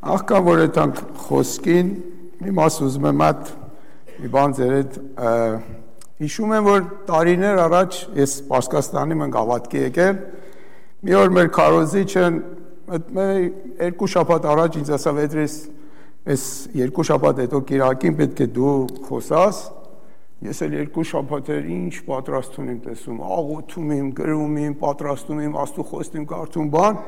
Աղքան որ եթանք խոսքին, մի մաս ուզում եմ այդ մի բան ձեր հետ հիշում եմ, որ տարիներ առաջ ես Պարսկաստանի մենք ավատքի եկել, մի օր մեր քարոզիչը երկու շաբաթ առաջ ինձ ասավ Էդրիս, այս երկու շաբաթ հետո կիրակին պետք է դու խոսաս, ես էլ երկու շաբաթեր ինչ պատրաստում եմ տեսում, աղոթում եմ, գրում եմ, պատրաստում եմ, աստու խոստում կարդում բան,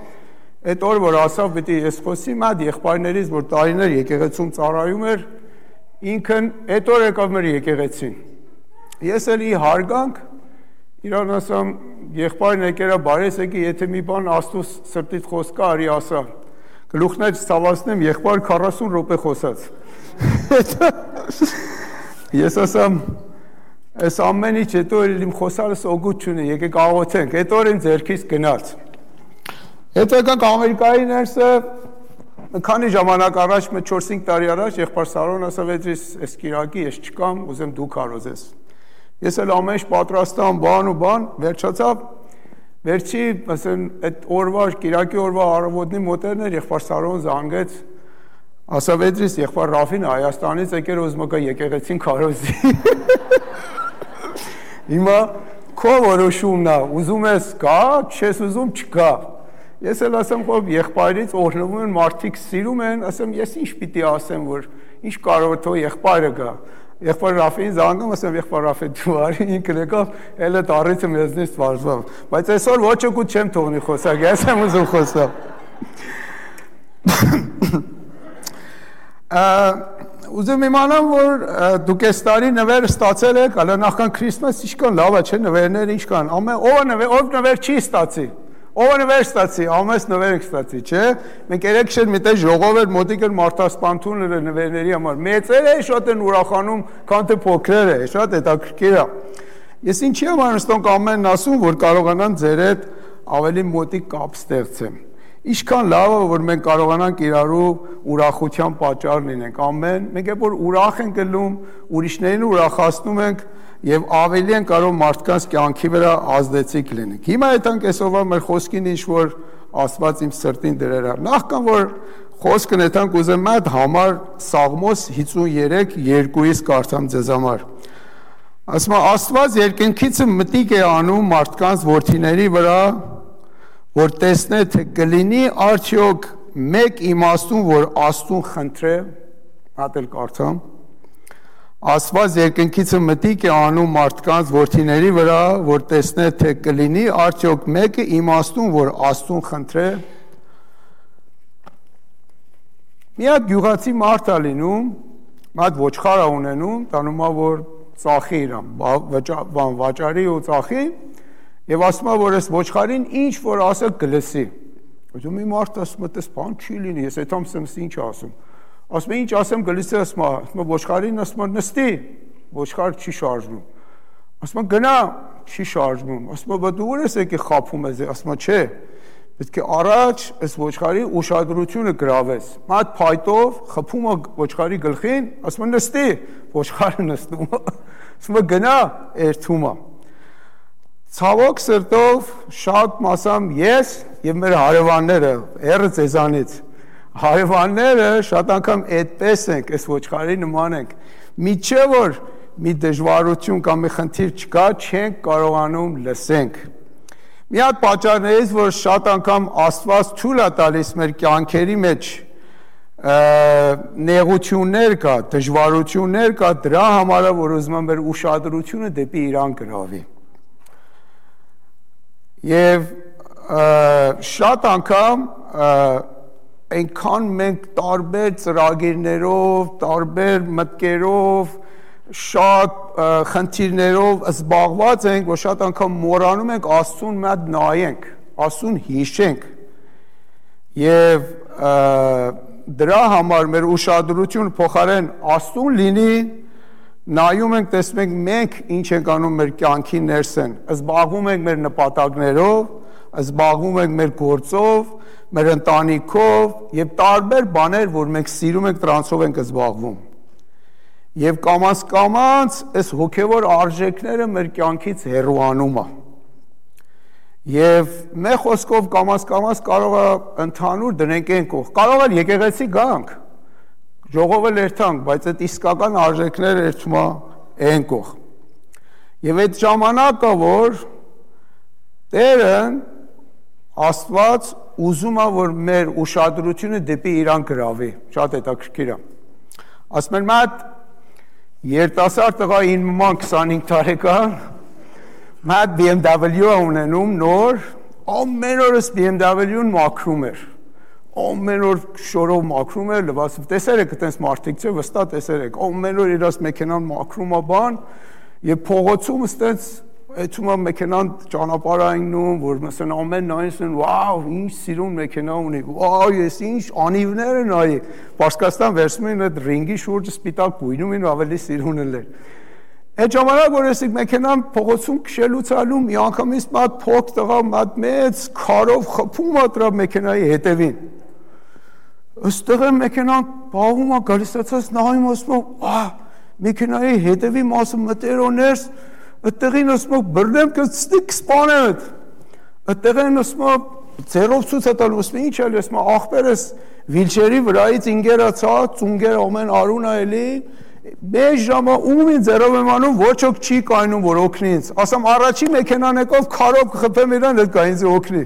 այդ օր որ ասավ պետք է ես խոսիմ այդ եղբայրներից, որ տարիներ եկեղեցում ծառայում էր, ինքն այդ օր եկավ մեր եկեղեցին։ Ես էլ ի հարգանք իրան ասամ եղբայրն եկերա բարես եկի, եթե մի բան աստու սրտիդ խոսք կա, արի ասա։ Գլուխներ ցավացնեմ, եղբայր 40 րոպե խոսած։ Ես ասամ այս ամեն ինչ հետո իմ խոսալս օգուտ չունի, եկեք աղոթենք։ Այդ օր իմ ձեռքից գնաց։ Հետո եկանք Ամերիկայի ներսը քանի ժամանակ առաջ, 4-5 տարի առաջ եղբայր Սարոն ասավ Էդրիս, այս կիրակի ես չկամ, ուզեմ դու քարոզես։ Ես էլ ամեն ինչ պատրաստամ, բան ու բան, վերջացավ, վերջի, ասեն, այդ օրվա, կիրակի օրվա առավոտնի մոտերներ եղբայր Սարոն զանգեց, ասավ Էդրիս, եղբայր Ռաֆին Հայաստանից եկել ուզում եկա եկեղեցին քարոզի։ Հիմա քո որոշումն է, ուզում ես գա, չես ուզում չգա։ Ես էլ ասեմ, որ եղբայրից օրհնվում են, մարդիկ սիրում են, ասեմ, ես ինչ պիտի ասեմ, որ ինչ կարող է թող եղբայրը գա։ Եղբայր Ռաֆին զանգում, ասեմ, եղբայր Ռաֆի դու արի, ինքն եկավ, էլ այդ առիթը մեզնից վարժվավ։ Բայց այսօր ոչ ոք չեմ թողնի խոսակ, ես եմ ուզում խոսալ։ Ուզում իմանամ, որ դուք այս տարի նվեր ստացել եք, հələ նախքան Քրիսմաս ինչքան լավ է, չէ՞, նվերներ ինչքան։ Ով նվեր չի ստացի։ Ով նվեր ստացի, ամես նվեր եք ստացի, չէ՞։ Մենք երեք շետ մի տեղ ժողով էր, մոտիկ էր մարդասպանություն էր նվերների համար։ Մեծերը շատ են ուրախանում, քան թե փոքրերը, շատ հետաքրքիր է։ Ես ինչի համար նստոնք ամենն ասում, որ կարողանան ձեր հետ ավելի մոտիկ կապ ստեղծեմ։ Ինչքան լավ է, որ մենք կարողանանք իրարու ուրախության պատճառ լինենք, ամեն, մենք երբ որ ուրախ ենք ելնում, ուրիշներին ուրախացնում ենք եւ ավելի են կարող մարդկանց կյանքի վրա ազդեցիկ լինենք։ Հիմա այդանք այսօրվա մեր խոսքին ինչ որ Աստված իմ սրտին դրել է։ Նախքան որ խոսքն այդանք ուզեմ այդ համար Սաղմոս 53:2-ից կարդամ ձեզ համար։ Ասում է Աստված երկնքից մտիկ է անում մարդկանց որդիների վրա, որ տեսնե թե կլինի արդյոք մեկ իմաստուն, որ Աստուն խնդրե, հատել կարդամ։ Աստված երկնքից մտիկ է անում մարդկանց որդիների վրա, որ տեսնե թե կլինի արդյոք մեկը իմաստուն, որ Աստուն խնդրե։ Մի հատ գյուղացի մարդ է լինում, այդ ոչխար է ունենում, տանում է որ ծախի իրան, վաճարի ու ծախի, եւ ասում է որ այս ոչխարին ինչ որ ասել կլսի։ Ուրեմն մի մարդ ասում է, «Տես բան չի լինի, ես այդամ ինչ ասում»։ Ասում է ինչ ասեմ գլիսը ասում է ոչխարին ասում է նստի, ոչխար չի շարժվում։ Ասում է գնա, չի շարժվում։ Ասում է դու ուր ես եկի խափում ես, ասում է չէ, պետք է առաջ այս ոչխարի ուշադրությունը գրավես։ Այդ փայտով խփում է ոչխարի գլխին, ասում է նստի, ոչխարը նստում է։ Ասում է գնա, երթում է։ Ցավոք սրտով շատ մասամ ես եւ մեր հարևանները, երը ձեզանից Հարևանները շատ անգամ այդպես ենք, այս ոչխարի նման ենք։ Միչե որ մի դժվարություն կամ մի խնդիր չկա, չենք կարողանում լսենք։ Մի հատ պատճառներից, որ շատ անգամ Աստված թույլ է տալիս մեր կյանքերի մեջ նեղություններ կա, դժվարություններ կա, դրա համար է, որ ուզում եմ մեր ուշադրությունը դեպի իրան գրավի։ Եվ շատ անգամ այնքան մենք տարբեր ծրագիրներով, տարբեր մտքերով, շատ խնդիրներով զբաղված ենք, որ շատ անգամ մոռանում ենք Աստծուն մատ նայենք, Աստծուն հիշենք։ Եվ դրա համար մեր ուշադրությունը փոխարեն Աստծուն լինի, նայում ենք, տեսնում ենք մենք ինչ ենք անում մեր կյանքի ներսեն, զբաղվում ենք մեր նպատակներով, զբաղվում ենք մեր գործով, մեր ընտանիքով եւ տարբեր բաներ, որ մենք սիրում ենք, դրանցով ենք զբաղվում։ Եվ կամաց այս հոգևոր արժեքները մեր կյանքից հեռուանում է։ Եվ մեր խոսքով կամաց կարող է ընդհանուր դնենք այն կողմ, կարող է եկեղեցի գանք, ժողովը լերթանք, բայց այդ իսկական արժեքները երթում է այն կողմ։ Եվ այդ ժամանակը, որ Տերն Աստված ուզում է, որ մեր ուշադրությունը դեպի իրան գրավի, շատ հետաքրքիր է։ Ասում են մատ երիտասարդ տղա 25 տարեկան, մատ BMW ունենում նոր, ամեն օրս BMW-ն մաքրում էր, ամեն օր շորով մաքրում էր, լվացով, տեսեր եք այտենց մարդիկ չէ, վստահ տեսեր եք, ամեն օր իրաց մեքենան մաքրում է բան, եւ փողոցում այտենց Այդում է մեքենան ճանապարհայնում, որ məsեն ամեն նայեցին, վաու, ինչ սիրուն մեքենա ունի, վաու, ես ինչ անիվներ են այ, Պարսկաստան վերցնում են այդ ռինգի շուրջը սպիտակ գույնում են ավելի սիրուն են։ Այդ ժամանակ որ ես մեքենան փողոցում քշելուց ալու մի անգամից մատ փոք տղա մատ մեծ քարով խփում է դրա մեքենայի հետևին։ Ըստեղ մեքենան բաղում է գալիսացած նայում ասում, «Ահ, մեքենայի հետևի մասը մտերոներս Այդտեղին ասում բռնեմ կստիկ սպանեմ այդ։ Այդտեղին ասում ձեռով ցույց է տալու, ասում ինչ էլի, ասում ախպերս վիլչերի վրայից ինգերացա, ծունգեր ամեն արուն է էլի, մեծ ժամը ում ինձ ձեռով եմ անում, ոչ ոք չի կայնում, որ օգնի ինձ։ Ասում առաջի մեքենան եկով քարով կխփեմ իրան, այդ կա ինձ օգնի։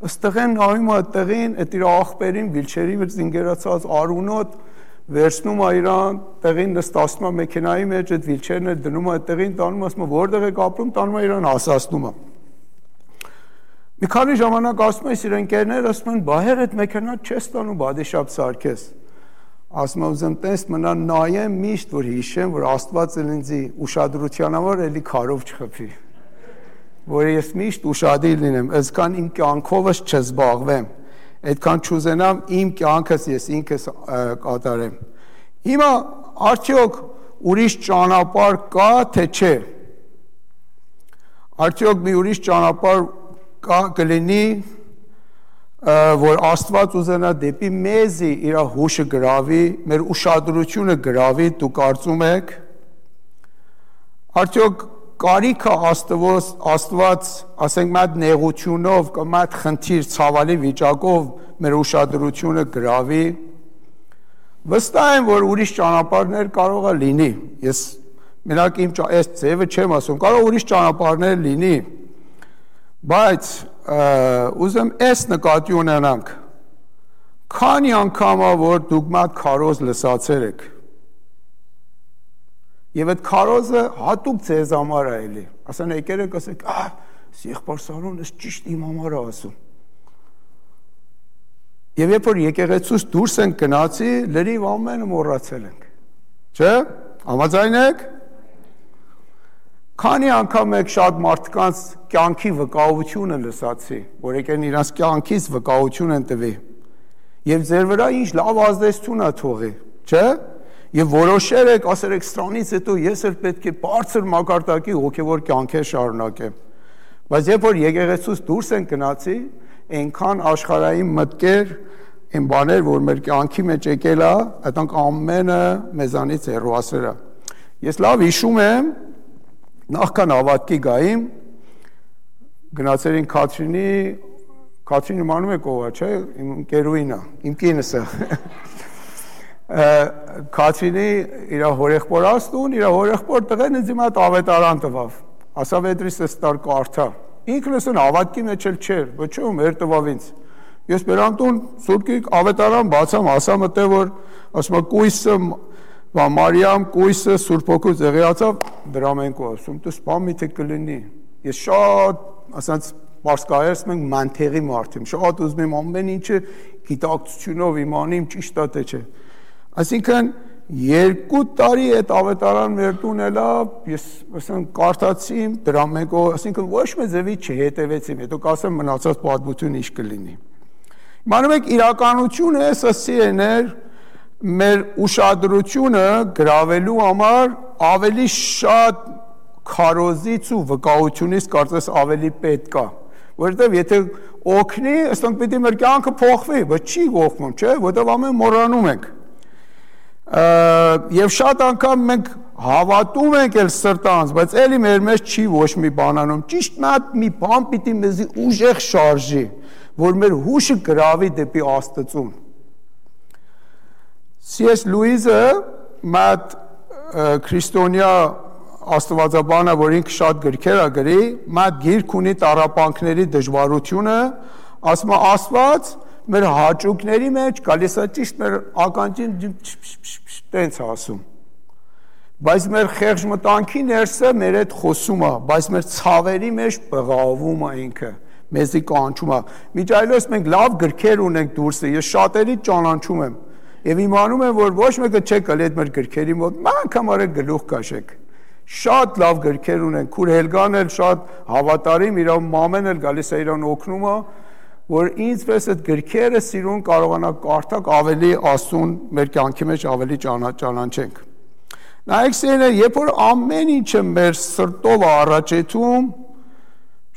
Այստեղին նայում է այդտեղին, այդ իր ախպերին վիլչերի վրա ինգերացած արունոտ վերցնում է իրան, տեղին նստացնում է մեքենայի մեջ, այդ վիլչերն է դնում է տեղին, տանում ասում որտեղ եք ապրում, տանում է իրան հասացնում է։ Մի քանի ժամանակ ասում է իր ընկերներ, ասում են, «Բայեր այդ մեքենան չես տանում բադիշապ սարքես»։ Ասում եմ, «Ուզեմ տես մնա նայեմ միշտ, որ հիշեմ, որ Աստված ինձ ուշադրության համար էլի քարով չխփի, որ ես միշտ ուշադիր լինեմ, այսքան իմ կյանքովս չզբաղվեմ, այդքան չուզենամ իմ կյանքս ես ինքս կատարեմ։ Հիմա արդյոք ուրիշ ճանապարհ կա, թե չէ։ Արդյոք մի ուրիշ ճանապարհ կա կլինի, որ Աստված ուզենա դեպի մեզի իր հուշը գրավի, մեր ուշադրությունը գրավի, դու կարծում եք։ Արդյոք կարիքը Աստված, ասենք մատ նեղությունով կամ մատ խնդիր ցավալի վիճակով մեր ուշադրությունը գրավի, վստահ եմ, որ ուրիշ ճանապարհներ կարող է լինի, ես մենակ իմ այս ձևը չեմ ասում, կարող ուրիշ ճանապարհներ լինի, բայց ուզեմ այս նկատի ունենանք, քանի անգամ է, որ դուք մատ քարոզ լսացել եք, Եվ այդ քարոզը հատուկ ձեզ համար է էլի, ասան եկեր եք ասեք, եղբայր Սարոն, ես ճիշտ իմ համար է ասում։ Եվ երբ որ եկեղեցուց դուրս ենք գնացի, լրիվ ամենը մոռացել ենք, չէ՞, համաձայն եք։ Քանի անգամ եք շատ մարդկանց կյանքի վկայությունը լսացի, որ եկեն իրանց կյանքից վկայություն են տվի, եւ ձեր վրա ինչ լավ ազդեցություն է թողի, չէ՞։ Եվ որոշեր եք, ասեր եք սրանից հետո ես էլ պետք է բարձր մակարդակի հոգևոր կյանքեր շարունակեմ։ Բայց երբ որ եկեղեցուց դուրս են գնացի, այնքան աշխարհային մտքեր, այն բաներ, որ մեր կյանքի մեջ եկել է, այդանք ամենը մեզանից հեռուասեր է։ Ես լավ հիշում եմ, նախքան հավատքի գայիմ, գնացել ենք Քաթրինի մանում եք ով է, չէ՞, իմ ընկերուհին է, իմ կինս է։ Քաթրինի իր հորեղբոր աստուն, իր հորեղբոր տղեն ինձ իմ այդ ավետարան տվավ, ասավ էդրիս ես տար կարդա, ինքն էսն հավատքի մեջ էլ չէր, ոչում էր տվավ ինձ, ես բերանտուն սուրկի ավետարան բացամ, ասամ ըտե, որ ասում է կույսը, Մարիամ կույսը Սուրբ Հոգու ձեղիացավ, դրա մենք ասում, դու սպան միթե կլինի, ես շատ, ասած պարսկայերս մենք մանթեղի մարդ եմ, շատ ուզում եմ ամեն ինչը գիտակցությունով իմանիմ ճիշտ է թե չէ։ Այսինքն 2 տարի այդ ավետարան մեր տուն էլա, ես ասեմ կարդացի դրա մեկով, այսինքն ոչ մի ձևի չհետևեցի, հետո կասեմ մնացած պատմություն ինչ կլինի։ Իմանում եք իրականությունը սասի էներ մեր ուշադրությունը գրավելու համար ավելի շատ քարոզից ու վկայությունից կարծես ավելի պետք է, որովհետև եթե օգնի, ըստենք պիտի մեր կյանքը փոխվի, բայց չի օգնում, չէ, որովհետև ամեն մոռանում ենք։ Եվ շատ անգամ մենք հավատում ենք էլ սրտանց, բայց էլի մեր մեջ չի ոչ մի բան անում։ Ճիշտ մի բան պիտի մեզի ուժեղ շարժի, որ մեր հուշը գրավի դեպի Աստծուն։ C.S. Լուիսը մատ քրիստոնյա աստվածաբանը, որ ինքը շատ գրքեր է գրի, մատ գիրք ունի տառապանքների դժվարությունը, ասում է Աստված մեր հաճույքների մեջ գալիս է ճիշտ մեր ականջին տենց ասում։ Բայց մեր խեղճ մտանքի ներսը մեր հետ խոսում է, բայց մեր ցավերի մեջ բղավում է ինքը, մեզի կանչում է։ Միջայլոց մենք լավ գրքեր ունենք դուրսը, ես շատերի ճանաչում եմ եւ իմանում եմ, որ ոչ մեկը չեք գալի այդ մեր գրքերի մոտ, անգամ արեք գլուխ կաշեք։ Շատ լավ գրքեր ունենք, քուր Հելգան էլ շատ հավատարիմ, իր մամեն էլ գալիս է իրան օգնում է, որ ինձպես այդ գրքերը սիրուն կարողանա կարդալ ավելի Աստծուն մեր կյանքի մեջ ավելի ճանաչենք։ Նայեք սիրելիներ, երբ որ ամեն ինչը մեր սրտով առաջեթում,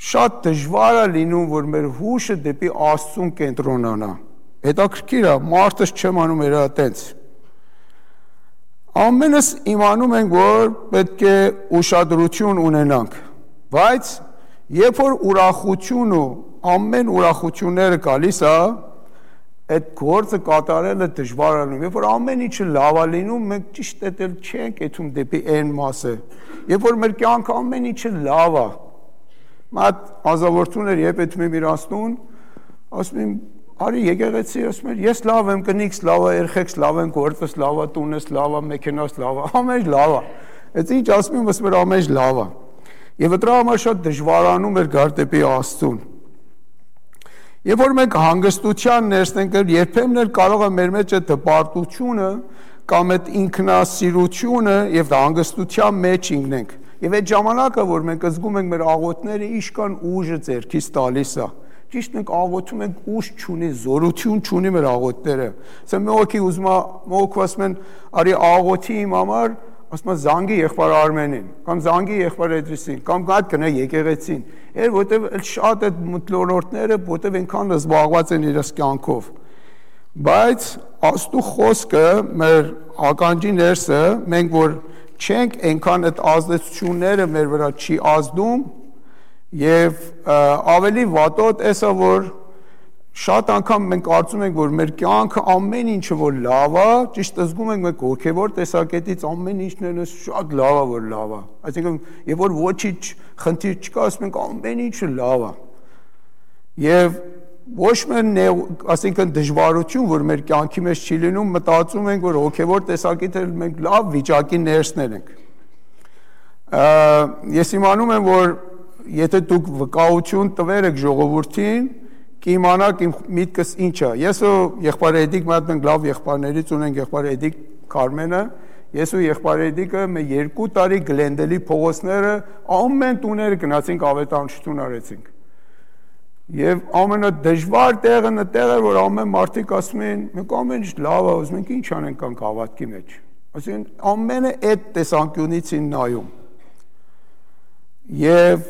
շատ դժվար է լինում, որ մեր հուշը դեպի Աստծուն կենտրոնանա։ Հետաքրքիր է, մարդս չեմ անում էր այտենց։ Ամենս իմանում ենք, որ պետք է ուշադրություն ունենանք, բայց երբ որ ուրախություն ու ամեն ուրախությունները գալիս է, այդ գործը կատարելը դժվար է լինում։ Երբ որ ամեն ինչը լավ է լինում, մենք ճիշտ էլ չենք եթում դեպի այն մասը։ Երբ որ մեր կյանքը ամեն ինչը լավ է, մատ ազավորություններ երբ եթում եմ իրանցնուն, ասում եմ, արի եկեղեցի, ասում եմ, ես լավ եմ, կնիքս լավ է, երեխեքս լավ են, գործս լավ է, տունս լավ է, մեքենաս լավ է, ամեն ինչ լավ է։ Այդ ինչ ասում եմ, ասում եմ, ամեն ինչ լավ է։ Եվ դրա համար շատ դժվարանում էր գալ դեպի Աստծուն։ Երբ որ մենք հանգստության ներսն ենք, երբեմն էլ կարող է մեր մեջ այդ հպարտությունը կամ այդ ինքնասիրությունը եւ հանգստության մեջ ինքնենք։ Եվ այդ ժամանակը, որ մենք զգում ենք մեր աղոթները իշքան ուժը ձեռքից տալիս է։ Ճիշտ մենք աղոթում ենք ուժ չունի, զորություն չունի մեր աղոթները։ Ասեմ մեկի ուզում է, մոք ասում են, արի աղոթի իմ համար, ասում է զանգի եղբայր Արմենին, կամ զանգի եղբայր Էդրիսին, կամ գա գնա եկեղեցին։ Որտեվ շատ այդ մթնոլորտները, որտեվ այնքան զբաղված են իրենց կյանքով։ Բայց Աստծո խոսքը մեր ականջի ներսը, մենք որ չենք այնքան այդ ազդեցությունները մեր վրա չի ազդում, եւ ավելի վատոտ էսա, որ շատ անգամ մենք կարծում ենք, որ մեր կյանքը ամեն ինչը որ լավ է, ճիշտ զգում ենք մենք հոգևոր տեսակետից ամեն ինչն է շատ լավ է, որ լավ է։ Այսինքն, երբ որ ոչինչ խնդիր չկա, ասում ենք ամեն ինչը լավ է։ Եվ ոչ միայն այսինքն դժվարություն, որ մեր կյանքի մեջ չի լինում, մտածում ենք, որ հոգևոր տեսակետից մենք լավ վիճակի ներսներ ենք։ Ես իմանում եմ, որ եթե դուք վկայություն տվեր եք ժողովրդին, կիմանաք իմ միտքս ինչ է։ Ես ու եղբայր Էդիկ մենք լավ եղբայրներից ունենք եղբայր Էդիկ Կարմենը, ես ու եղբայր Էդիկը մեր 2 տարի Գլենդելի փողոցները ամեն տուները գնացինք ավետարանչություն արեցինք։ Եվ ամենադժվար տեղը նտեղ էր, որ ամեն մարդիկ ասում են, մենք ամեն ինչ լավ է, ուզում ենք ինչ անենք կանք հավատքի մեջ։ Այսինքն ամենը այդ տեսանկյունից են նայում։ Եվ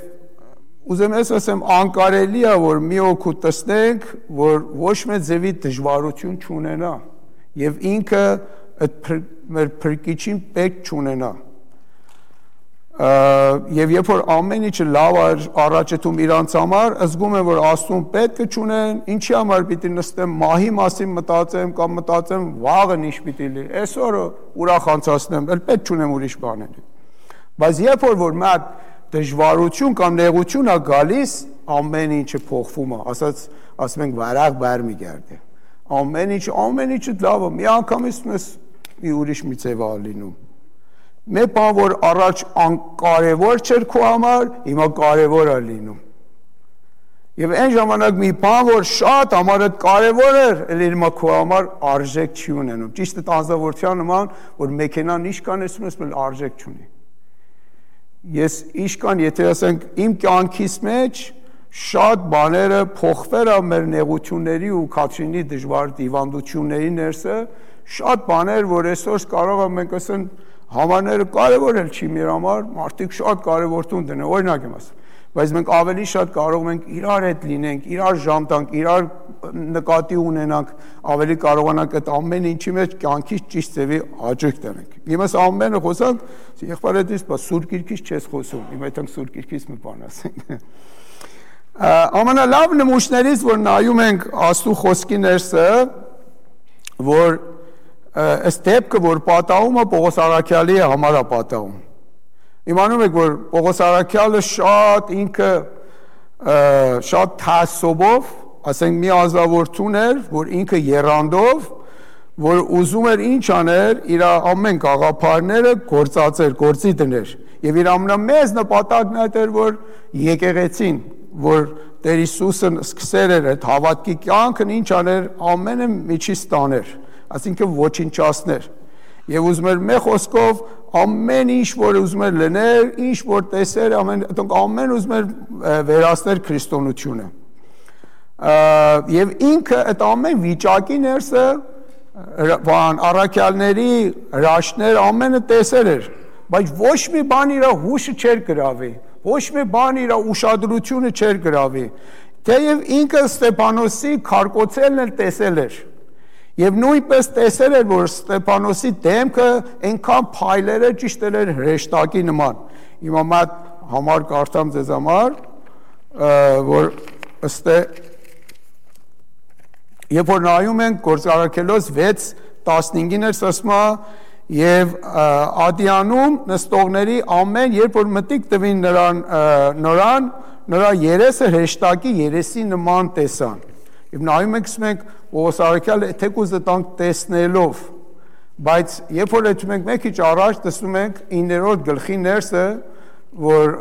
ուզեմ ես ասեմ, անկարելի է, որ մի օգուտ տեսնենք, որ ոչ մեծ ձևի դժվարություն չունենա եւ ինքը այդ մեր փրկիչին պետք չունենա։ Եվ երբ որ ամեն ինչը լավ առաջեթում իրանց համար, զգում եմ, որ Աստծուն պետք է չունեն, ինչի համար պիտի նստեմ մահի մասին մտածեմ կամ մտածեմ վաղը ինչ պիտի լինի, այսօրը ուրախ անցացնեմ, էլ պետք չունեմ ուրիշ բաներ։ Բայց երբ որ մատ դժվարություն կամ նեղություն է գալիս, ամեն ինչը փոխվում է, ասում ենք վարաղ բար մի գերդե։ Ամեն ինչը լավ է, մի անգամից մի ուրիշ մի ձև է լինում։ Մեր բան, որ առաջ անկարևոր չէր քո համար, հիմա կարևոր է լինում։ Եվ այն ժամանակ մի բան, որ շատ համարդ կարևոր էր, էլ հիմա քո համար արժեք չի ունենում։ Ճիշտ է անձնավորության նման, որ մեքենան իշքան ես արժեք չունի։ Ես իշքան, եթե ասենք իմ կյանքիս մեջ շատ բաները փոխվել է մեր նեղությունների ու քաչինի դժվար դիվանդությունների ներսը, շատ բաներ, որ այսօր կարող եմ մենք ասենք համարները կարևոր էլ չի մեր համար, մարդիկ շատ կարևոր տուն դնեն, օրինակ եմ ասում։ բայց մենք ավելի շատ կարող ենք իրար հետ լինենք, իրար ժամ տանք, իրար նկատի ունենանք, ավելի կարողանանք այդ ամեն ինչի մեջ կյանքից ճիշտ ձևի հաճույք տանենք։ Հիմա ամենը խոսանք, եղբայրից բա Սուրբ Գիրքից չես խոսում, հիմա այդտեղ Սուրբ Գիրքից մի բան ասենք։ Ամենալավ նմուշներից, որ նայում ենք Աստծո խոսքի ներսը, որ այս դեպքը, որ պատահումը Պողոս Առաքյալի համար է պատահում։ Իմանում եք, որ Պողոս Առաքյալը շատ ինքը շատ թասոբով, ասենք մի ազնվորություն էր, որ ինքը եռանդով, որ ուզում էր ինչ աներ, իր ամեն գաղափարները գործածեր, գործի դներ։ Եվ իր ամենամեծ նպատակն այդ էր, որ եկեղեցին, որ Տեր Հիսուսը սկսել էր այդ հավատքի կյանքն ինչ աներ, ամենը միջից տաներ, այսինքն ոչնչացներ։ Եվ ուզում էր մեկ խոսքով ամեն ինչ, որ ուզում էր լներ, ինչ որ տեսեր, ամեն ուզում էր վերացնել քրիստոնեությունը։ Եվ ինքը այդ ամեն վիճակի ներսը առաքյալների հրաշքներ ամենը տեսել էր, բայց ոչ մի բան իր հուշը չէր գրավի, ոչ մի բան իր ուշադրությունը չէր գրավի, թեև ինքը Ստեփանոսի քարկոծելն էլ տեսել էր, եւ նույնպես տեսել էր, որ Ստեփանոսի դեմքը այնքան փայլերը ճիշտ էր հրեշտակի նման։ Հիմա մատ համար կարդամ ձեզ համար, որ ըստ երբ որ նայում ենք Գործարքելոս 6:15-ին էր ասում եւ Ադիանում նստողների ամեն երբ որ մտիկ տվին նրան նրա երեսը հրեշտակի երեսի նման տեսան եւ նայում ենք Պողոս Առաքյալը թեկուզ տանք տեսնելով բայց երբ որ դու մենք մեկ քիչ առաջ տեսնում ենք 9-րդ գլխի ներսը որ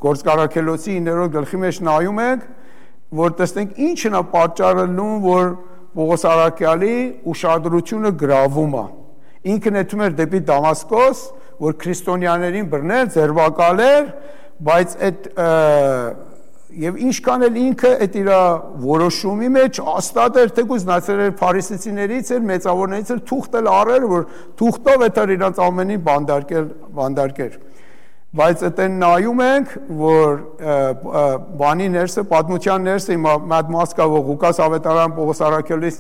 Գործարքելոսի 9-րդ գլխի մեջ նայում ենք որ տեսնենք ինչն է պատճառը լուն որ Պողոս Առաքյալի ուշադրությունը գրավում է ինքն էթում էր դեպի Դամասկոս, որ քրիստոնյաներին բռնել, ձերբակալեր, բայց այդ եւ ինչքան էլ ինքը այդ իր որոշումի մեջ հաստատ էր թեկուզ նացել էր փարիսեցիներից էր մեծավորներից էր թուղթել առել, որ թուղթով էր իրանց ամենին բանդարկել բայց այդեն նայում ենք, որ բանի ներսը, պատմության ներսը մատ մասկա որ Ղուկաս ավետարան Պողոս Առաքյալից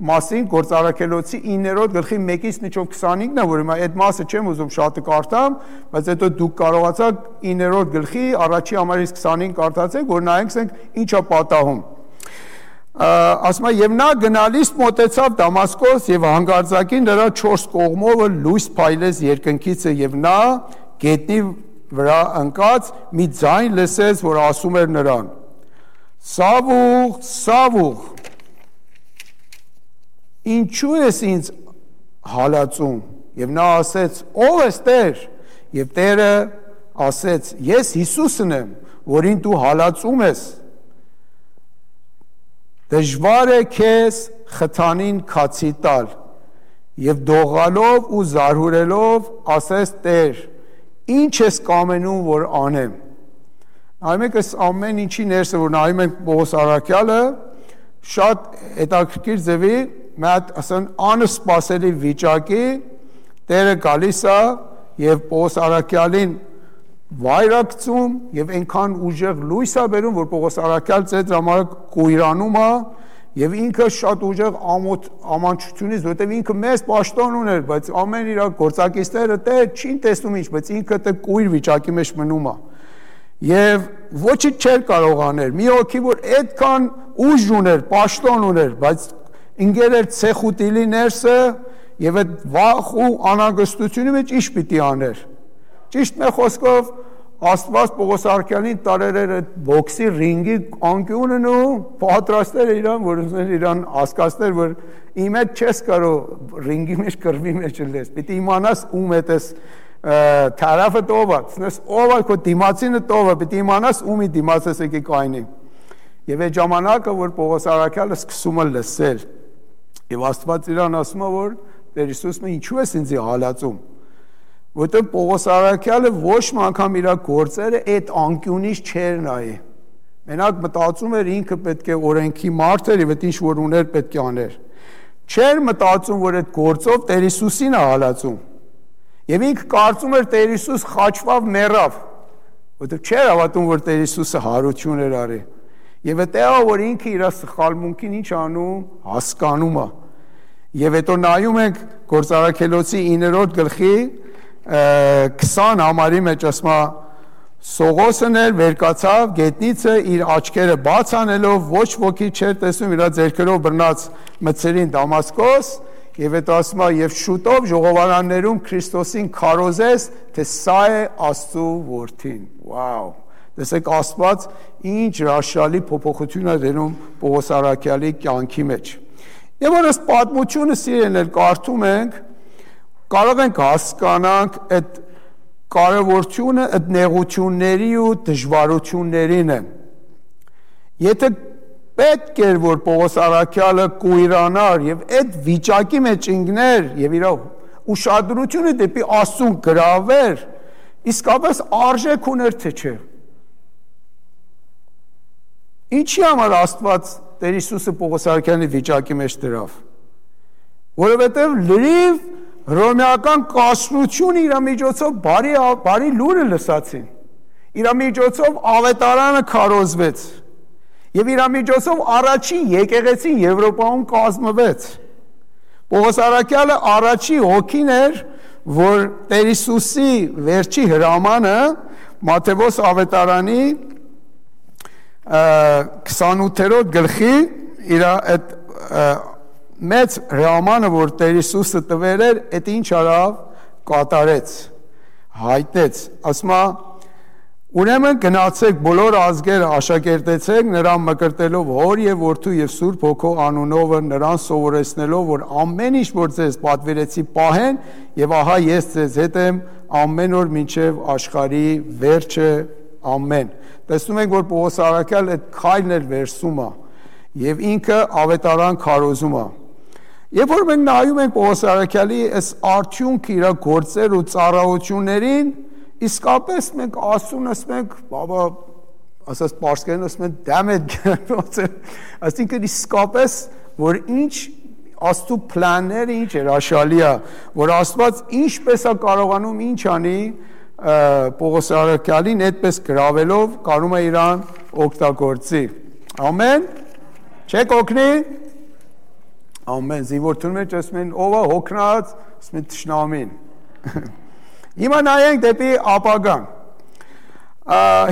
մասին Գործարքելոցի 9-րդ գլխի 1-ից մինչև 25-ն է, որ հիմա այդ մասը չեմ ուզում շատ կարդամ, բայց հետո դուք կարողացաք 9-րդ գլխի առաջի համարից 25 կարդացեք, որ նայենք ինչ է պատահում։ Ասում է եւ նա գնալիս մոտեցավ Դամասկոս եւ հանգարձակին նրա 4 կողմովը լույս փայլեց երկնքիցը եւ նա գետնի վրա ընկած մի ձայն լսեց, որ ասում էր նրան. Սավուղ, Սավուղ, ինչու ես ինձ հալածում, եւ նա ասեց, ով ես Տեր, եւ Տերը ասեց, ես Հիսուսն եմ, որին դու հալածում ես, դժվար է քեզ խթանին քացի տալ, եւ դողալով ու զարհուրելով ասեց Տեր, ինչ ես կամենում, որ անեմ։ Նայում եք այս ամեն ինչի ներսը, որ նայում ենք Պողոս Առաքյալը, շատ հետաքրքիր ձևի, մեկ ասեն անսպասելի վիճակի, Տերը գալիս է եւ Պողոս Առաքյալին վայրակցում եւ այնքան ուժեղ լույս է բերում, որ Պողոս Առաքյալ ծեծ համար կույրանում է եւ ինքը շատ ուժեղ ամանչությունից, որտեւ ինքը մեծ պաշտոն ուներ, բայց ամեն իր գործակիցները դե չի տեսնում ինչ, բայց ինքը դե կույր վիճակի մեջ մնում է։ Եվ ոչինչ չէր կարող անել։ Մի հոգի որ այդքան ուժ ուներ, պաշտոն ուներ, բայց ինքեր էր ցեխուտիլի ներսը եւ այդ վախ ու անհանգստությունի մեջ ինչ պիտի աներ։ Ճիշտ մի խոսքով Աստված Պողոս Առաքյալին տարեր էր այդ բոքսի ռինգի անկյունն ու պատրաստել էր իրան, որ ուզել իրան հասկացնել, որ իմ հետ չես կարող ռինգի մեջ կռվի մեջ լես, պիտի իմանաս ում հետ ես թարաֆը տովա, ցնես ով է քո դիմացինը տովա, պիտի իմանաս ումի դիմաց ես եկի կայնի։ Եվ այդ ժամանակը, որ Պողոս Առաքյալը սկսում է լսել, եւ Աստված իրան ասում է, որ Տեր Հիսուսը ինչու ես ինձ հալածում։ Որտեղ Պողոս Առաքյալը ոչ մի անգամ իր գործերը այդ անկյունից չէր նայի։ Մենակ մտածում էր ինքը պետք է օրենքի մարդ էր եւ այդ ինչ որ ուներ պետք է աներ։ Չէր մտածում, որ այդ գործով Տեր Հիսուսին է հալածում։ Եվ ինքը կարծում էր Տեր Հիսուս խաչվավ մեռավ, որտեղ չէր հավատում, որ Տեր Հիսուսը հարություն էր արի։ Եվ դա որ ինքը իր սխալմունքին ինչ անում, հասկանում է։ Եվ հետո նայում ենք Գործարաքելոցի 9-րդ գլխի 20 համարի մեջ ասում է Սողոսն էլ վերկացավ գետնիցը իր աչքերը բաց անելով ոչ ոքի չէր տեսնում իր ձեռքերով բռնած մցերին Դամասկոս եւ հետո ասում է եւ շուտով ժողովարաններում Քրիստոսին քարոզես թե սա է Աստծո որդին վաու տեսեք Աստված ինչ հրաշալի փոփոխություն է դնում Պողոս Արաքյալի կյանքի մեջ եւ որ այս պատմությունը սիրելիներ կարդում ենք կարող ենք հասկանանք այդ կարևորությունը այդ նեղությունների ու դժվարություններին է եթե պետք էր որ Պողոս Արաքյալը կույրանար եւ այդ վիճակի մեջ ինգներ եւ իր ուշադրությունը դեպի Աստծուն գրավեր իսկապես արժեք ուներ թե չէ ինչի համար Աստված Տեր Հիսուսը Պողոս Արաքյալի վիճակի մեջ դրավ որովհետեւ լրիվ Հռոմեական կասրությունը իր միջոցով բարի լուրը լսացին իր միջոցով ավետարանը քարոզվեց եւ իր միջոցով առաջին եկեղեցին Եվրոպայում կազմվեց Պողոս Արաքյալը առաջի հոգին էր որ Տեր Հիսուսի վերջի հրամանը Մատթեոս ավետարանի 28-րդ գլխի իր այդ մեծ հրամանը որ Տեր Հիսուսը տվել էր այդ ինչ արավ կատարեց հայտնեց ասում է ուրեմն գնացեք բոլոր ազգերը աշակերտեցեք նրան մկրտելով հոր եւ որդու եւ սուրբ հոգու անունով նրան սովորեցնելով որ ամեն ինչ որ ձեզ պատվիրեցի պահեն եւ ահա ես ձեզ հետ եմ ամեն օր մինչեւ աշխարհի վերջը ամեն տեսնում ենք որ Պողոս Արաքյալը այդ քայլն էր վերսում է եւ ինքը ավետարան քարոզում է Երբ որ մենք նայում ենք Պողոս Արաքյալի այս արդյունքը իր գործեր ու ծառայություններին, իսկապես մենք ասում ենք, բաբա, ասած պարսկերեն ասում են դամեդ այսինքն իսկապես որ ինչ Աստծո պլանները ինչ էր հաշալի է, որ Աստված ինչպես է կարողանում ինչ անի Պողոս Արաքյալին այդպես գրավելով կարում է իրան օգտագործի։ Ամեն։ Չեք օգնի Ամեն զինվորթուն մեջ ասում են ով է հոգնած ասում են թշնամին Հիմա նայենք դեպի ապագան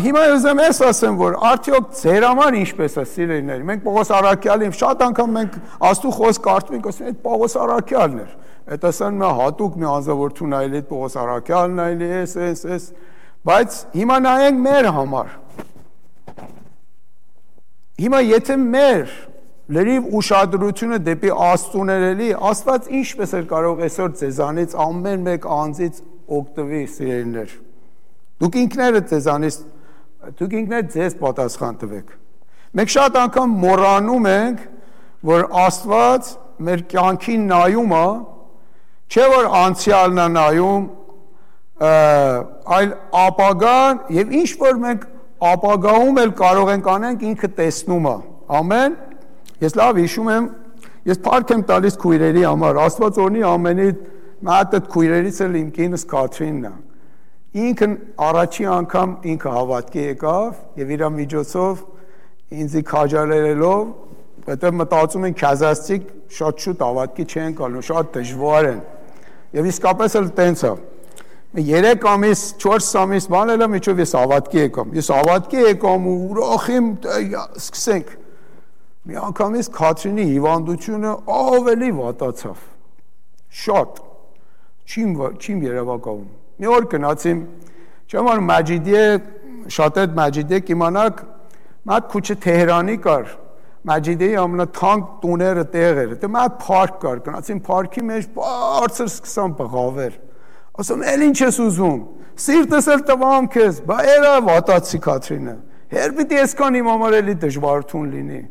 Հիմա ուզեմ ես ասեմ որ արդյոք ձեր համար ինչպես է սիրելիներ մենք Պողոս Արաքյալին շատ անգամ մենք Աստծո խոսք կարդում ենք ասում այդ Պողոս Արաքյալն էր այդ ասան մի հատուկ մի անձնավորություն այլ այդ Պողոս Արաքյալն այլ էս բայց հիմա նայենք մեր համար Հիմա եթե մեր լրիվ ուշադրությունը դեպի Աստծուն էլի, Աստված ինչպես էր կարող այսօր ձեզանից ամեն մեկ անձից օգտվի սիրելիներ։ Դուք ինքներդ ձեզ պատասխան տվեք։ Մենք շատ անգամ մոռանում ենք, որ Աստված մեր կյանքին նայում է, չէ որ անցյալն է նայում, այլ ապագան եւ ինչ որ մենք ապագայում էլ կարող ենք անենք ինքը տեսնում է։ Ամեն Ես լավ հիշում եմ, ես փառք եմ տալիս քույրերի համար, Աստված օրհնի ամենի մատ այդ քույրերից էլ իմ կինս Կաթրինն է։ Ինքն առաջի անգամ ինքը հավատքի եկավ եւ իր միջոցով ինձի քաջալերելով, որտեղ մտածում են քազաստիկ շատ շուտ հավատքի չեն գալու, շատ դժվար են։ Եվ իսկապես էլ տենց է։ 3 ամիս, 4 ամիս բան էլ միջով ես հավատքի եկամ։ Ես հավատքի եկամ ու ուրախ եմ, սկսենք Մի անգամից Քաթրինի հիվանդությունը ավելի վատացավ։ Շատ։ Չիմ երևակայում։ Մի օր գնացիմ, չեմ անում Մաջիդիե, շատ այդ Մաջիդիե կիմանաք, մատ քուչը Թեհրանի կար։ Մաջիդիեի ամենաթանկ տուները տեղ էր։ Դե մատ փարք կար, գնացիմ փարքի մեջ բարձր սկսան բղավել։ Ասում էլ ինչ ես ուզում։ Սիրտս էլ տվամ քեզ, բա էրա վատացի Քաթրինը։ Հեր պիտի այսքան իմ համար էլի դժվարություն լինի։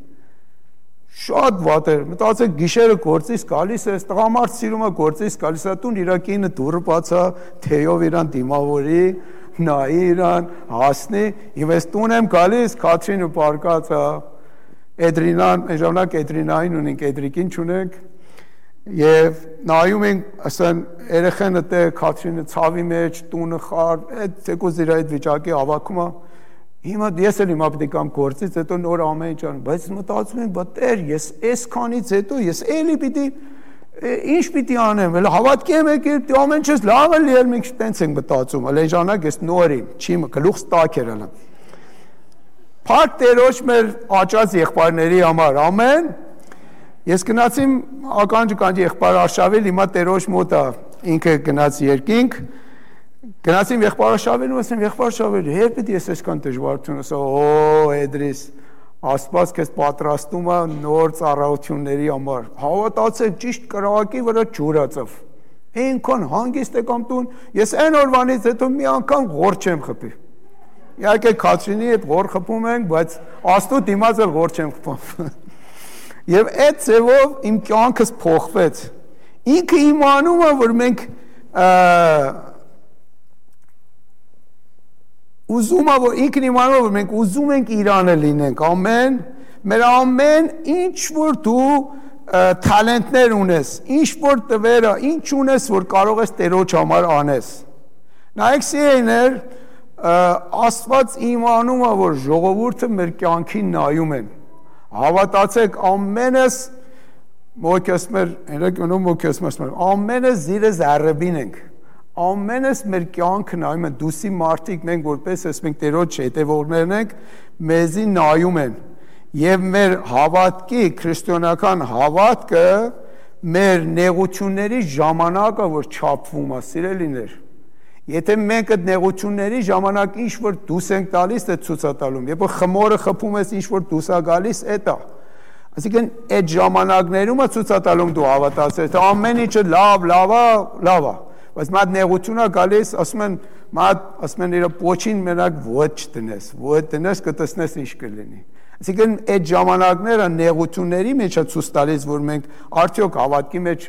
Շատ վատ էր, մտածեք գիշերը գործից գալիս է, տղամարդ սիրում է գործից գալիս է, տուն իր կինը դուռը բացա, թեյով իրան դիմավորի, նայի իրան, հասնի, եւ ես տուն եմ գալիս, Քաթրինը պարկած է, Էդրինան, ժամանակ Էդրինային ունենք, Էդրիկին չունենք, Եվ նայում ենք, ասեն, երեխեն դե Քաթրինը ցավի մեջ, տունը խար, այդ ցեկոս իր այդ վիճակի ավակումը հիմա ես էլ հիմա պետք է կամ գործից հետո նոր ամեն ինչ ան, բայց մտածում եմ, բա Տեր, ես այսքանից հետո ես էլի պիտի ինչ պիտի անեմ, էլ հավատքի եմ եկել, ամեն ինչս լավ է լիել, մենք տենց ենք մտածում, էլ այն ժամանակ ես նոր եմ, չի գլուխս տաք էր ալա։ Փառք Տերոջ մեր աճած եղբայրների համար, ամեն։ Ես գնացիմ ականջ եղբայր Արշավել, հիմա Տերոջ մոտ է, ինքը գնաց երկինք, գնացիմ եղբայր Արշավելին, ասեմ եղբայր Արշավել, հեր պիտի ես այսքան դժվարություն, ասա, օ, Էդրիս, Աստված քեզ պատրաստում է նոր ծառայությունների համար։ Հավատացեք, ճիշտ կրակի վրա ջուր ածավ։ Այնքան հանգիստ եկամ տուն, ես այն օրվանից հետո մի անգամ ղոր չեմ խփի։ Իհարկե Քաթրինի հետ ղոր խփում ենք, բայց Աստծո դիմաց էլ ղոր չեմ խփում։ Եվ այդ ձևով իմ կյանքս փոխվեց։ Ինքը իմանում է, որ մենք ուզում է, որ ինքն իմանում է, որ մենք ուզում ենք Իրանը լինենք, ամեն, մեր ամեն ինչ որ դու թալենտներ ունես, ինչ որ տվերը, ինչ ունես, որ կարող ես Տերոջ համար անես։ Նայեք սիրելիներ, Աստված իմանում է, որ ժողովուրդը մեր կյանքին նայում են։ Հավատացեք, ամենս մոքեսմեր, երեկոնում մոքեսմեր, ամենս զիրը զարրբին ենք։ Ամենս մեր կյանքը նայում են, դուսի մարդիկ մենք որպես ես մենք Տերոջ հետևողներն ենք, մեզի նայում են։ Եվ մեր հավատքի, քրիստոնեական հավատքը մեր նեղությունների ժամանակը, որ չափվում է, սիրելիներ։ Եթե մենք այդ նեղությունների ժամանակ ինչ որ դուս ենք տալիս, դա ցուցատալում։ Երբ որ խմորը խփում ես, ինչ որ դուս է գալիս, դա։ Այսինքն այդ ժամանակներում է ցուցատալում դու հավատացես, թե ամեն ինչը լավ է։ Բայց մատ նեղություն է գալիս, ասում են իր պոչին մենակ ոտ տնես, կտեսնես ինչ կլինի։ Այսինքն այդ ժամանակները նեղությունների մեջ է ցույց տալիս, որ մենք արդյոք հավատքի մեջ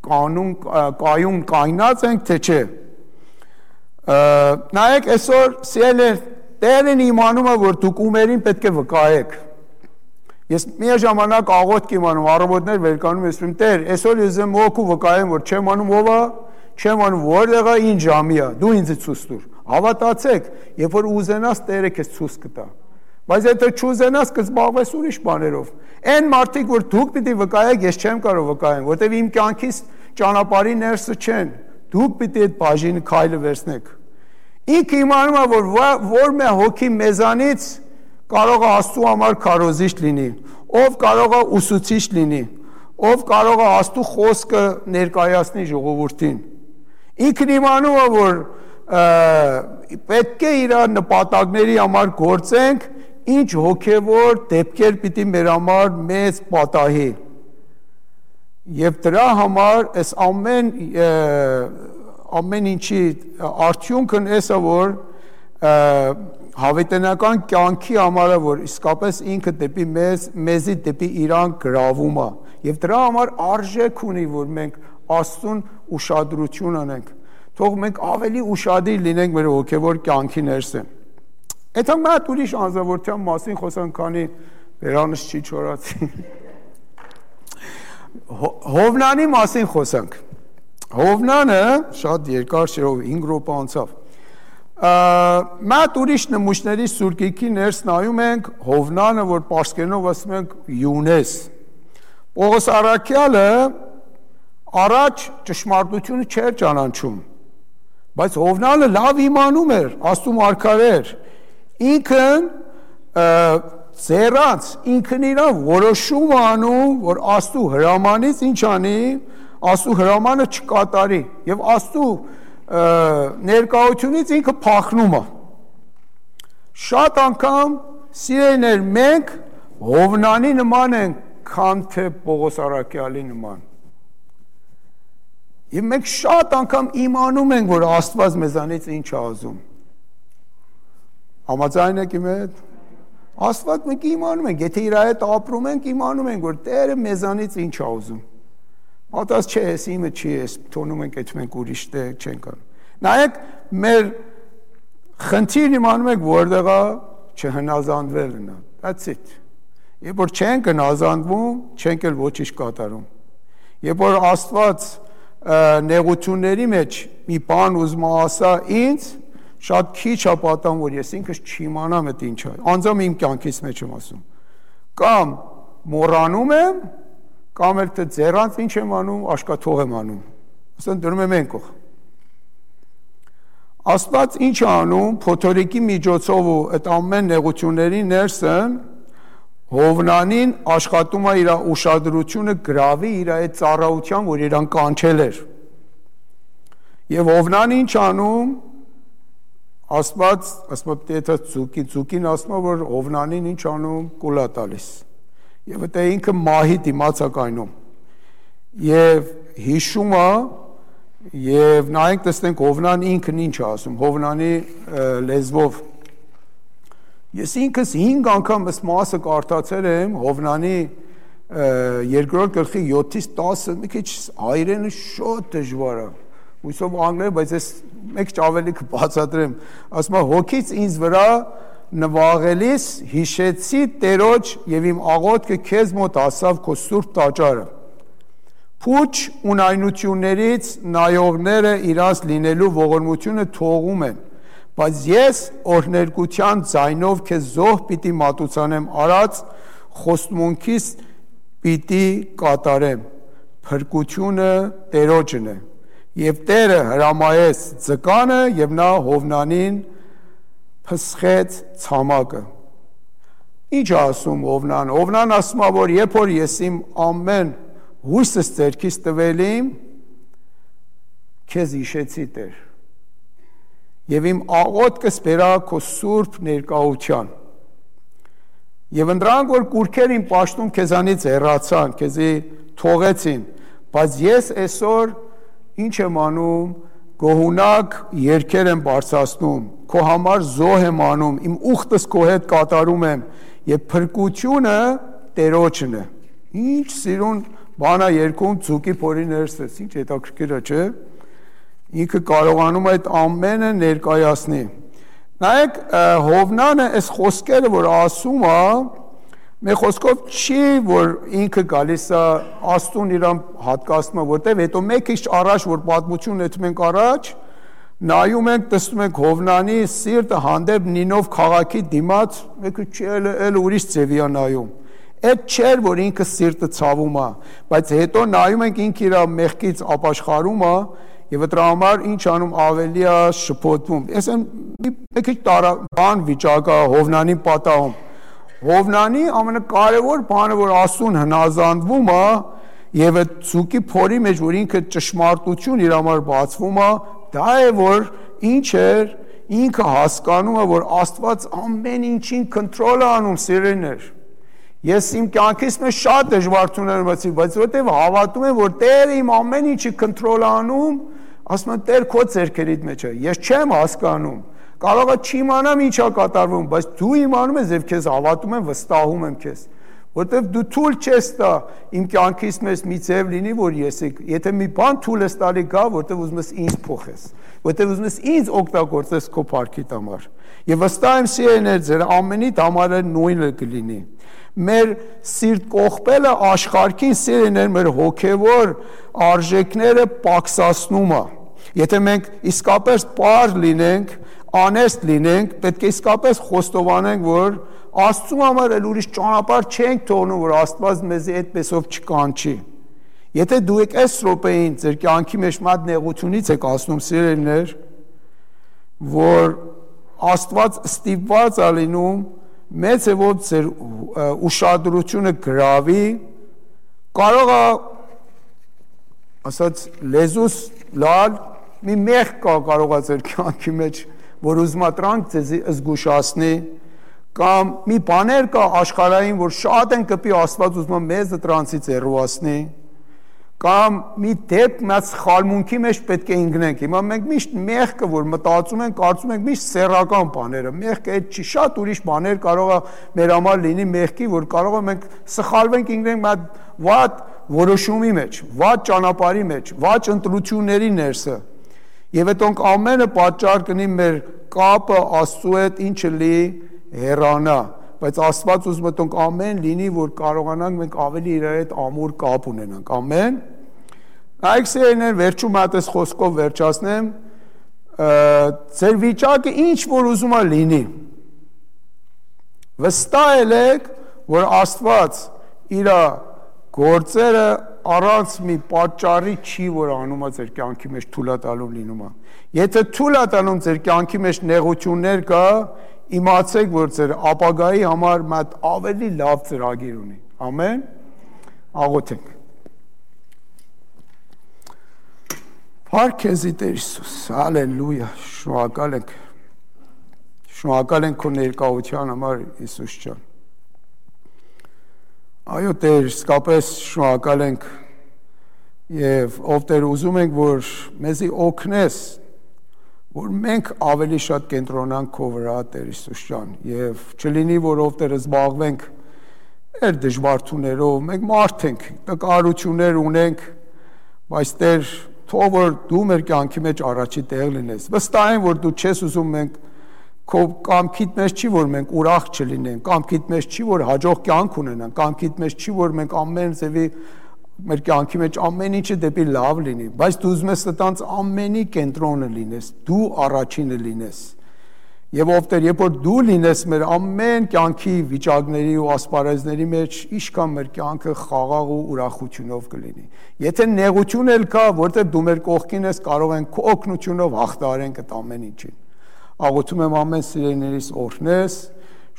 կայուն կայնած ենք, թե չէ։ Նայեք այսօր սիրելիներ, Տերն իմանում է, որ դուք ումերին պետք է վկայեք։ Ես մի ժամանակ աղոթք եմ անում, առավոտներ վեր կանում ես, Տեր, այսօր ես եմ օգու վկայեմ, որ չեմ անում ով է, չեմ անում որտեղ է, ինչ ժամի է, դու ինձ ցույց տուր։ Հավատացեք, երբ որ ուզենաս Տերը քեզ ցույց կտա։ Բայց եթե չուզենաս կզբաղվես ուրիշ բաներով։ Այն մարդիկ, որ դուք պիտի վկայեք, ես չեմ կարող վկայեմ, որտեղ իմ կյանքից ճանապարհի ներսը չեն։ Դուք պիտի այդ բաժինը քայլը վերցնեք։ Ինքը իմանում է, որ մի հոգի մեզանից կարող է Աստծո համար քարոզիչ լինի, ով կարող է ուսուցիչ լինի, ով կարող է Աստծո խոսքը ներկայացնի ժողովրդին։ Ինքն իմանում է, որ պետք է իր նպատակների համար գործենք, ինչ հոգևոր դեպքեր պիտի մեր համար մեծ պատահի։ Եվ դրա համար այս ամեն ինչի արդյունքն էսա, որ հավիտենական կյանքի համար է, որ իսկապես ինքը դեպի մեզի դեպի իրան գրավում է։ Եվ դրա համար արժեք ունի, որ մենք Աստծուն ուշադրություն անենք, թող մենք ավելի ուշադիր լինենք մեր հոգևոր կյանքի ներսը։ Այդ մատ ուրիշ անձնավորության մասին խոսանք, քանի վերանս չի չորացի։ Հովնանի մասին խոսանք։ Հովնանը շատ երկար չէ, 5 րոպե անցավ։ Մատ ուրիշ նմուշների սուրկիքի ներս նայում ենք, Հովնանը, որ պարսկերենով ասում ենք Յունես։ Պողոս առաքյալը առաջ ճշմարտությունը չէր ճանաչում, բայց Հովնանը լավ իմանում էր, Աստծո մարգարե էր։ Ինքն ձեռած, ինքն իրան որոշում անում, որ Աստծո հրամանից ինչ անի, Աստծո հրամանը չկատարի, եւ Աստծո ներկայությունից ինքը փախնում է։ Շատ անգամ սիրելիներ, մենք Հովնանի նման ենք, քան թե Պողոս առաքյալի նման։ Եվ մենք շատ անգամ իմանում ենք, որ Աստված մեզանից ինչ է ուզում։ Համաձայն եք իմ հետ։ Աստված մենք իմանում ենք, եթե իր հետ ապրում ենք, իմանում ենք, որ Տերը մեզանից ինչ է ուզում։ Մատած չէ, ես իմը չի, ես թողնում ենք, այդ մենք ուրիշ տեղ չենք անում։ Նայեք, մեր խնդիրն իմանում ենք, որտեղ է չհնազանդվելն է։ That's it։ Երբ որ չենք հնազանդվում, չենք էլ ոչինչ կատարում։ Երբ որ Աստված նեղությունների մեջ մի բան ուզում ասա ինձ, շատ քիչ է պատահում, որ ես ինքս չիմանամ այդ ինչ է, անձամբ իմ կյանքից մեջ եմ ասում, կամ մոռանում եմ, կամ էլ թե ձեռանց ինչ եմ անում, աշկաթող եմ անում, ասեն դնում եմ ենքող։ Աստված ինչ է անում, փոթորիկի միջոցով ու այդ ամեն նեղությունների ներսն Հովնանին աշխատում է իր ուշադրությունը գրավի իր այդ ծառայության, որ իրան կանչել էր։ Եվ Հովնան ինչ անում, Աստված, ասում է դա ծուկին ասում է, որ Հովնանին ինչ անում, կուլա տալիս։ Եվ դա ինքը մահի դիմաց է կայնում։ Եվ հիշում է, եւ նայենք տեսնենք Հովնան ինքն ինչ է ասում, Հովնանի լեզվով։ Ես ինքս 5 անգամ այս մասը կարդացել եմ Հովնանի 2-րդ գլխի 7-ից 10, մի քիչ հայերենը շատ դժվար է։ Հույսով անգլերեն, բայց ես մեկ ավելի կբացատրեմ։ Ասում է հոգից ինձ վրա նվաղելիս հիշեցի Տերոջ եւ իմ աղոթքը քեզ մոտ ասավ քո սուրբ տաճարը։ Փուչ ունայնություններից նայողները իրաց լինելու ողորմությունը թողում են, բայց ես օրհներգության ձայնով քեզ զոհ պիտի մատուցանեմ արած խոստմունքիս պիտի կատարեմ, փրկությունը Տերոջն է, եւ Տերը հրամայեց ձկանը եւ նա Հովնանին փսխեց ցամաքը։ Ինչ ասում Հովնան։ Հովնան ասում է, որ երբ որ ես իմ ամեն հույսս ձեռքից տվել իմ, քեզ հիշեցի Տեր, եւ իմ աղոթքս բերա քո սուրբ ներկայության, եւ ընդրանք որ կուրքեր իմ պաշտում քեզանից հեռացան, քեզի թողեցին, բայց ես այսօր ինչ եմ անում, գոհունակ երգեր եմ բարձրացնում, քո համար զոհ եմ անում, իմ ուխտս քո հետ կատարում եմ, եւ փրկությունը Տերոջն է։ Ինչ սիրուն բանա երկում ծուկի փորի ներսից, ինչ հետաքրքիր է, չէ՞։ Ինքը կարողանում է այդ ամենը ներկայացնի։ Նայեք, Հովնանը այս խոսքերը, որ ասում է, մեր խոսքով չի, որ ինքը գալիս է Աստուն իրան հատկացնում է, որտեղ հետո մեկ քիչ առաջ, որ պատմություն էթում ենք առաջ, նայում ենք, տեսնում ենք Հովնանի սիրտը հանդեպ Նինով քաղաքի դիմաց, մեկը չի էլ ուրիշ ձևի է նայում։ Այդ չէր, որ ինքը սիրտը ցավում է, բայց հետո նայում ենք ինքը իր մեղքից ապաշխարում է եւ դրա համար ինչ անում ավելի է շփոթվում։ Ես մի քիչ բան վիճակա Հովնանին պատահում։ Հովնանի ամենակարևոր բանը, որ Աստուն հնազանդվում է եւ այդ ցուկի փորի մեջ, որ ինքը ճշմարտություն իր համար բացվում է, դա է, որ ինչ էր, ինքը հասկանում է, որ Աստված ամեն ինչին կոնտրոլ է անում, սիրելիներ։ Ես իմ կյանքից մեջ շատ դժվարություններ ունեցի, բայց որտեվ հավատում եմ, որ Տերը իմ ամեն ինչի կոնտրոլ անում, ասում եմ Տեր քո ձեռքերիդ մեջ է։ Ես չեմ հասկանում։ Կարող է չիմանամ ինչ է կատարվում, բայց դու իմանում ես եւ քեզ հավատում եմ, վստահում եմ քեզ։ Որտեվ դու թույլ չես տա իմ կյանքից մեջ մի ձև լինի, որ ես եթե մի բան թույլ ես տալի գա, որտեվ ուզում ես ինձ փոխես, որտեվ ուզում ես ինձ օգտագործես քո փառքի համար։ Եվ վստահ եմ սիրելիներ, ձեր ամենիդ համար նույնը կլինի։ Մեր սիրտ կողպելը աշխարհքին սիրելիներ մեր հոգևոր արժեքները պակսացնում է։ Եթե մենք իսկապես պար լինենք, անեստ լինենք, պետք է իսկապես խոստովանենք, որ Աստծու համար էլ ուրիշ ճանապարհ չենք թողնում, որ Աստված մեզի այդպեսով չկանչի։ Եթե դու եք այս րոպեին ձեր կյանքի մեջ մատ նեղությունից եք ասնում, սիրելիներ, որ Աստված ստիպված է լինում մեծ է որ ձեր ուշադրությունը գրավի, կարող է ասած լեզուս լալ մի մեղք կա կարող է ձեր կյանքի մեջ, որ ուզում է տրանք ձեզի զգուշացնի, կամ մի բաներ կա աշխարհային, որ շատ են կպի Աստված ուզում է մեզ դրանցից հեռացնի, կամ մի դեպք մեծ խալմունքի մեջ պետք է ընկնենք։ Հիմա մենք միշտ մեղքը, որ մտածում ենք, կարծում ենք միշտ սեռական բաները, մեղքը այդ չի, շատ ուրիշ բաներ կարող է մեր համար լինի մեղքի, որ կարող է մենք սխալվենք, ընկնենք մի վատ որոշումի մեջ, վատ ճանապարհի մեջ, վատ ընտրությունների ներսը։ Եվ այդոնք ամենը պատճառ կնի մեր կապը Աստծու հետ ինչը լի հեռանա, բայց Աստված ուզում է տոնք ամեն լինի, որ կարողանանք մենք ավելի իր հետ ամուր կապ ունենանք, ամեն։ Հայք սիրելիներ, վերջում հատես խոսքով վերջացնեմ, ձեր վիճակը ինչ որ ուզում է լինի, վստահ եք, որ Աստված իր գործերը առանց մի պատճառի չի, որ անում է ձեր կյանքի մեջ թույլատալում լինում է։ Եթե թույլատալում ձեր կյանքի մեջ նեղություններ կա, իմացեք, որ ձեր ապագայի համար մատ ավելի լավ ծրագիր ունի։ Ամեն։ Աղոթենք։ Փառք քեզ Տեր Հիսուս, հալելույա, շնորհակալ ենք քո ներկայության համար, Հիսուս ջան։ Այո Տեր, իսկապես շնորհակալ ենք եւ ով Տեր ուզում ենք, որ մեզի օգնես, որ մենք ավելի շատ կենտրոնանք քո վրա, Տեր Հիսուս ջան, եւ չլինի, որ ով Տեր զբաղվենք մեր դժվարություններով, մենք մարդ ենք, տկարություններ ունենք, բայց Տեր, թող որ դու մեր կյանքի մեջ առաջի տեղ լինես։ Վստահ եմ, որ դու չես ուզում մենք քո կամքիդ մեջ չի, որ մենք ուրախ չլինենք, կամքիդ մեջ չի, որ հաջող կյանք ունենանք, կամքիդ մեջ չի, որ մենք ամեն ձևի մեր կյանքի մեջ ամեն ինչը դեպի լավ լինի, բայց դու ուզում ես այդտենց ամենի կենտրոնը լինես, դու առաջինը լինես։ Եվ ով Տեր, երբ որ դու լինես մեր ամեն կյանքի վիճակների ու ասպարեզների մեջ, ինչքան մեր կյանքը խաղաղ ու ուրախությունով կլինի։ Եթե նեղություն էլ կա, որտեղ դու մեր կողքին ես, կարող ենք քո օգնությունով հաղթահարենք այդ ամեն ինչին։ Աղոթում եմ ամեն սիրելիներիս օրհնես,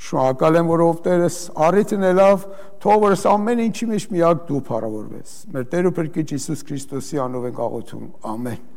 շնորհակալ եմ, որ ով Տերս առիթն ելավ, թող որ ամեն ինչի մեջ միակ դու փառավորվես։ Մեր Տեր ու Փրկիչ Հիսուս Քրիստոսի անով ենք աղոթում։ Ամեն։